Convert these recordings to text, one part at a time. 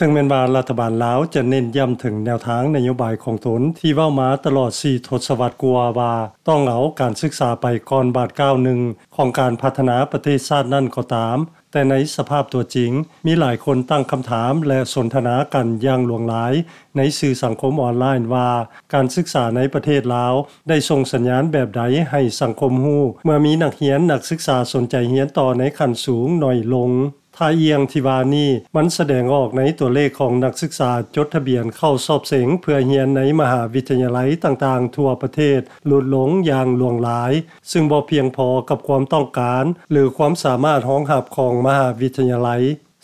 ເຖິງແມ່ນວ່າລັດຖະບານລາວຈະເນັ້ນຢ້ຳເຖິງແນວທາງນະໂຍບາຍຂອງຕົນທີ່ເວົ້າມາຕະຫຼອດສີ່ທົດສະວັດກວ່າວ່າ ຕ້ອງເອົາການສຶກສາໄປກ່ອນບາດກ້າວໜຶ່ງຂອງການພັດທະນາປະເທດຊາດນັ້ນກໍຕາມ, ແຕ່ໃນສະພາບຕົວຈິງ, ມີຫຼາຍຄົນຕັ້ງຄຳຖາມ ແລະ ສົນທະນາກັນຢ່າງຫຼວງຫຼາຍໃນສື່ສັງຄົມອອນລາຍນວ່າ ການສຶກສາໃນປະເທດລາວໄດ້ສົ່ງສັນຍານແບບໃດໃຫ້ສັງຄົມຮູ້ ເມື່ອມີນັກຮຽນນັກສຶກສາສົນໃຈຮຽນຕໍ່ໃນຂັ້ນສູງໜ້ອຍລົງ. ທ່າອ່ຽງທີ່ວ່ານີ້ ມັນສະແດງອອກໃນຕົວເລກຂອງນັກສຶກສາຈົດທະບຽນເຂົ້າສອບເສັງເພື່ອຮຽນໃນມະຫາວິທະຍາໄລຕ່າງໆທົ່ວປະເທດຫຼຸດລົງຢ່າງຫຼວງຫຼາຍ, ຊຶ່ງບໍ່ພຽງພໍກັບຄວາມຕ້ອງການ ຫຼື ຄວາມສາມາດຮອງຮັບຂອງມະຫາວິທະຍາໄລ.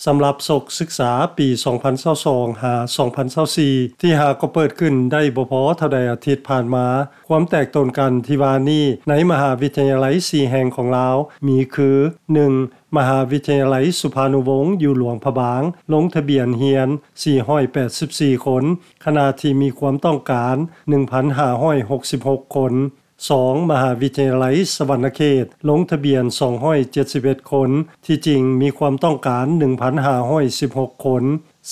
ສຳລັບສົກສຶກສາປີສອງພັນຊາວສອງ ຫາ ສອງພັນຊາວສີ່ ທີ່ຫາກໍເປີດຂຶ້ນໄດ້ບໍ່ພໍເທົ່າໃດອາທິດຜ່ານມາ, ຄວາມແຕກຕົນກັນທີ່ວ່ານີ້ໃນມະຫາວິທະຍາໄລສີ່ແຫ່ງຂອງລາວມີຄື ໜຶ່ງ ມະຫາວິທະຍາໄລສຸພານຸວົງຢູ່ຫຼວງພະບາງ ລົງທະບຽນຮຽນສີ່ຮ້ອຍແປດສິບສີ່ຄົນ, ຂະນະທີ່ມີຄວາມຕ້ອງການໜຶ່ງພັນຫ້າຮ້ອຍຫົກສິບຫົກຄົນ. ສອງ ມະຫາວິທະຍາໄລສະຫວັນນະເຂດ ລົງທະບຽນສອງຮ້ອຍເຈັດສິບເອັດຄົນ, ທີ່ຈິງມີຄວາມຕ້ອງການໜຶ່ງພັນຫ້າຮ້ອຍສິບຫົກຄົນ.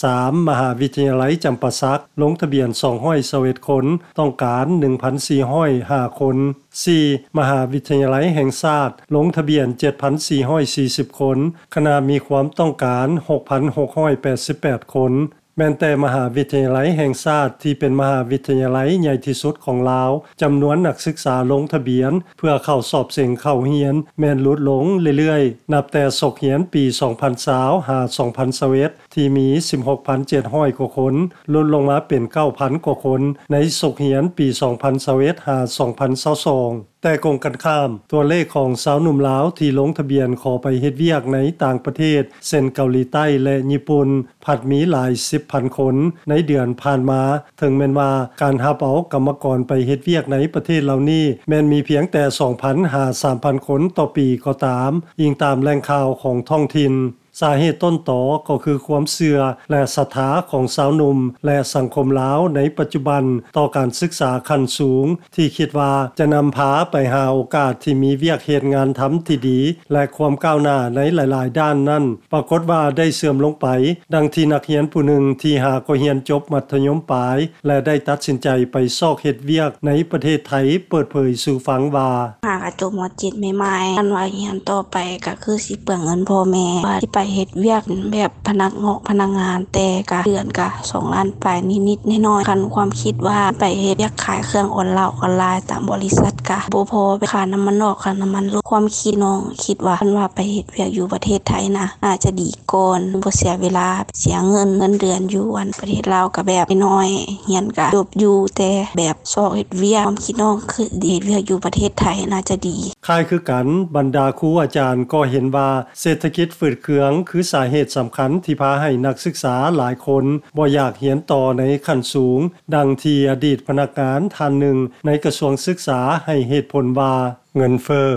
ສາມ ມະຫາວິທະຍາໄລຈຳປາສັກ ລົງທະບຽນສອງຮ້ອຍຊາວເອັດຄົນ, ຕ້ອງການໜຶ່ງພັນສີ່ຮ້ອຍຫ້າຄົນ. ສີ່ ມະຫາວິທະຍາໄລແຫ່ງຊາດ ລົງທະບຽນເຈັດພັນສີ່ຮ້ອຍສີ່ສິບຄົນ, ຂະນະມີຄວາມຕ້ອງການຫົກພັນຫົກຮ້ອຍແປດສິບແປດຄົນ. ແມ່ນແຕ່ມະຫາວິທະຍາໄລແຫ່ງຊາດທີ່ເປັນມະຫາວິທະຍາໄລໃຫຍ່ທີ່ສຸດຂອງລາວ, ຈຳນວນນັກສຶກສາລົງທະບຽນເພື່ອເຂົ້າສອບເສັງເຂົ້າຮຽນແມ່ນຫຼຸດລົງເລື້ອຍໆ, ນັບແຕ່ສົກຮຽນປີສອງພັນຊາວ ຫາ ສອງພັນຊາວເອັດ ທີ່ມີສິບຫົກພັນເຈັດຮ້ອຍກວ່າຄົນ, ຫຼຸດລົງມາເປັນເກົ້າພັນກວ່າຄົນໃນສົກຮຽນປີສອງພັນຊາວເອັດ ຫາ ສອງພັນຊາວສອງ. ແຕ່ກົງກັນຂ້າມ, ຕົວເລກຂອງຊາວໜຸ່ມລາວທີ່ລົງທະບຽນຂໍໄປເຮັດວຽກໃນຕ່າງປະເທດ ເຊັ່ນ ເກົາຫຼີໃຕ້ ແລະ ຍີ່ປຸ່ນ ພັດມີຫຼາຍສິບພັນຄົນໃນເດືອນຜ່ານມາ, ເຖິງແມ່ນວ່າການຮັບເອົາກຳມະກອນໄປເຮັດວຽກໃນປະເທດເຫຼົ່ານີ້ ແມ່ນມີພຽງແຕ່ສອງພັນຫາສາມພັນຄົນຕໍ່ປີກໍຕາມ, ອີງຕາມແຫຼ່ງຂ່າວຂອງທ້ອງຖິ່ນ. ສາເຫດຕົ້ນຕໍກໍຄືຄວາມເຊື່ອ ແລະ ສັດທາຂອງຊາວໜຸ່ມ ແລະ ສັງຄົມລາວໃນປັດຈຸບັນຕໍ່ການສຶກສາຂັ້ນສູງ ທີ່ຄິດວ່າຈະນຳພາໄປຫາໂອກາດທີ່ມີວຽກເຮັດງານທຳທີ່ດີ ແລະ ຄວາມກ້າວໜ້າໃນຫຼາຍໆດ້ານນັ້ນ ປາກົດວ່າໄດ້ເສື່ອມລົງໄປ, ດັ່ງທີ່ນັກຮຽນຜູ້ໜຶ່ງທີ່ຫາກໍຮຽນຈົບມັດທະຍົມປາຍ ແລະ ໄດ້ຕັດສິນໃຈໄປຊອກເຮັດວຽກໃນປະເທດໄທ ເປີດເຜີຍສູ່ຟັງວ່າ ຫາກະຈົບ ມ.ເຈັດ ໃໝ່ໆ ຄັນວ່າຮຽນຕໍ່ໄປກະຄືຊິເປືອງເງິນພໍ່ແມ່ ວ່າຊິໄປເຮັດວຽກແບບພະນັກງອກພະນັກງານ ແຕ່ກະເດືອນກະສອງລ້ານປາຍນິດໆໜ້ອຍໆ. ຄັນຄວາມຄິດວ່າໄປເຮັດວຽກຂາຍເຄື່ອງອອນລາວອອນລາຍຕາມບໍລິສັດ ກະບໍ່ພໍຄ່ານ້ຳມັນອອກ ຄ່ານ້ຳມັນລົດ. ຄວາມຄິດນ້ອງຄິດວ່າ ຄັນວ່າໄປເຮັດວຽກຢູ່ປະເທດໄທນະ ໜ້າຈະດີກ່ອນ ບໍ່ເສຍເວລາ ເສຍເງິນ ເງິນເດືອນຢູ່ອັນປະເທດລາວກະແບບນ້ອຍ ຮຽນກະຈົບຢູ່ ແຕ່ແບບຊອກເຮັດວຽກ ຄວາມຄິດນ້ອງຄືເຮັດວຽກຢູ່ປະເທດໄທໜ້າຈະດີ. ຄ້າຍຄືກັນ, ບັນດາຄູອາຈານກໍເຫັນວ່າເສດຖະກິດຝືດເຄືອງຄືສາເຫດສຳຄັນທີ່ພາໃຫ້ນັກສຶກສາຫຼາຍຄົນບໍ່ຢາກຮຽນຕໍ່ໃນຂັ້ນສູງ, ດັ່ງທີ່ອະດີດພະນັກງານທ່ານໜຶ່ງໃນກະຊວງສຶກສາໃຫ້ເຫດຜົນວ່າ ເງິນເຟີ້,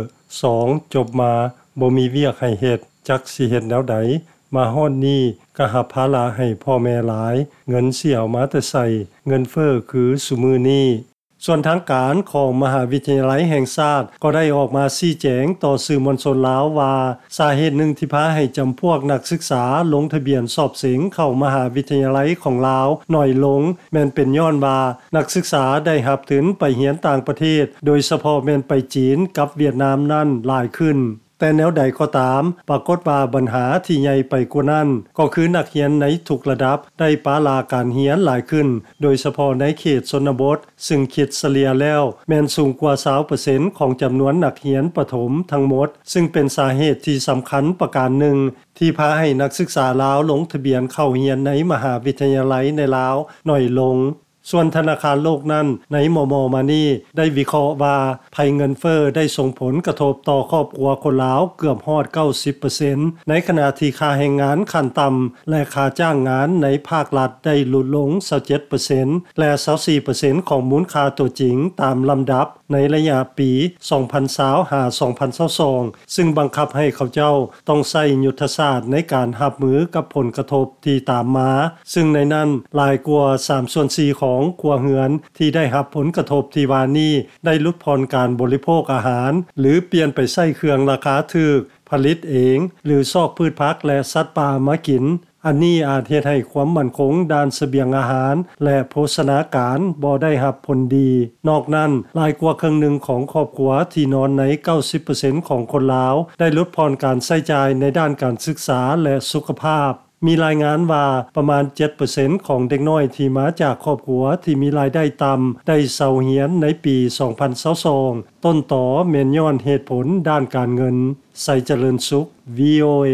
ສອງ ຈົບມາບໍ່ມີວຽກໃຫ້ເຮັດ, ຈັກຊິເຮັດແນວໃດ, ມາຮອດນີ້ກະຮັບພາລະໃຫ້ພໍ່ແມ່ຫຼາຍ, ເງິນຊິເອົາມາແຕ່ໃສ, ເງິນເຟີ້ຄືຊຸມື້ນີ້. ສ່ວນທາງການຂອງມະຫາວິທະຍາໄລແຫ່ງຊາດກໍໄດ້ອອກມາຊີ້ແຈງຕໍ່ສື່ມວນຊົນລາວວ່າ ສາເຫດໜຶ່ງທີ່ພາໃຫ້ຈຳພວກນັກສຶກສາລົງທະບຽນສອບເສັງເຂົ້າມະຫາວິທະຍາໄລຂອງລາວໜ້ອຍລົງ ແມ່ນເປັນຍ້ອນວ່ານັກສຶກສາໄດ້ຮັບທຶນໄປຮຽນຕ່າງປະເທດ, ໂດຍສະເພາະແມ່ນໄປຈີນກັບຫວຽດນາມນັ້ນຫຼາຍຂຶ້ນ. ແຕ່ແນວໃດກໍຕາມ, ປາກົດວ່າບັນຫາທີ່ໃຫຍ່ໄປກວ່ານັ້ນ ກໍຄືນັກຮຽນໃນທຸກລະດັບໄດ້ປະລະການຮຽນຫຼາຍຂຶ້ນ, ໂດຍສະເພາະໃນເຂດຊົນນະບົດ, ຊຶ່ງຄິດສະເລ່ຍແລ້ວແມ່ນສູງກວ່າຊາວເປີເຊັນຂອງຈຳນວນນັກຮຽນປະຖົມທັງໝົດ, ຊຶ່ງເປັນສາເຫດທີ່ສຳຄັນປະການໜຶ່ງ ທີ່ພາໃຫ້ນັກສຶກສາລາວລົງທະບຽນເຂົ້າຮຽນໃນມະຫາວິທະຍາໄລໃນລາວໜ້ອຍລົງ. ສ່ວນທະນາຄານໂລກນັ້ນ ໃນມໍ່ໆມານີ້ໄດ້ວິເຄາະວ່າ ໄພເງິນເຟີ້ໄດ້ສົ່ງຜົນກະທົບຕໍ່ຄອບຄົວຄົນລາວເກືອບຮອດເກົ້າສິບເປີເຊັນ, ໃນຂະນະທີ່ຄ່າແຮງງານຂັ້ນຕ່ຳ ແລະ ຄ່າຈ້າງງານໃນພາກລັດໄດ້ຫຼຸດລົງຊາວເຈັດເປີເຊັນ ແລະ ຊາວສີ່ເປີເຊັນຂອງມູນຄ່າຕົວຈິງຕາມລຳດັບໃນໄລຍະປີສອງພັນຊາວ ຫາ ສອງພັນຊາວສອງ ຊຶ່ງບັງຄັບໃຫ້ເຂົາເຈົ້າຕ້ອງໃຊ້ຍຸດທະສາດໃນການຮັບມືກັບຜົນກະທົບທີ່ຕາມມາ, ຊຶ່ງໃນນັ້ນຫຼາຍກວ່າສາມສ່ວນສີ່ຂອງຄົວເຮືອນທີ່ໄດ້ຮັບຜົນກະທົບທີ່ວ່ານີ້ ໄດ້ຫຼຸດຜ່ອນການບໍລິໂພກອາຫານ ຫຼື ປ່ຽນໄປໃຊ້ເຄື່ອງລາຄາຖືກ, ຜະລິດເອງ ຫຼື ຊອກພືດຜັກ ແລະ ສັດປ່າມາກິນ. ອັນນີ້ອາດເຮັດໃຫ້ຄວາມໝັ້ນຄົງດ້ານສະບຽງອາຫານ ແລະ ໂພຊະນາການບໍ່ໄດ້ຮັບຜົນດີ. ນອກນັ້ນ, ຫຼາຍກວ່າເຄິ່ງໜຶ່ງຂອງຄອບຄົວທີ່ນອນໃນ 90% ຂອງຄົນລາວ ໄດ້ຫຼຸດຜ່ອນການໃຊ້ຈ່າຍໃນດ້ານການສຶກສາ ແລະ ສຸຂະພາບ. ມີລາຍງານວ່າປະມານ 7% ຂອງເດັກນ້ອຍທີ່ມາຈາກຄອບຄົວທີ່ມີລາຍໄດ້ຕ່ຳ ໄດ້ເຊົາຮຽນໃນປີ 2022. ຕົ້ນຕໍແມ່ນຍ້ອນເຫດຜົນດ້ານການເງິນ. ໄຊຈະເລີນສຸກ VOA.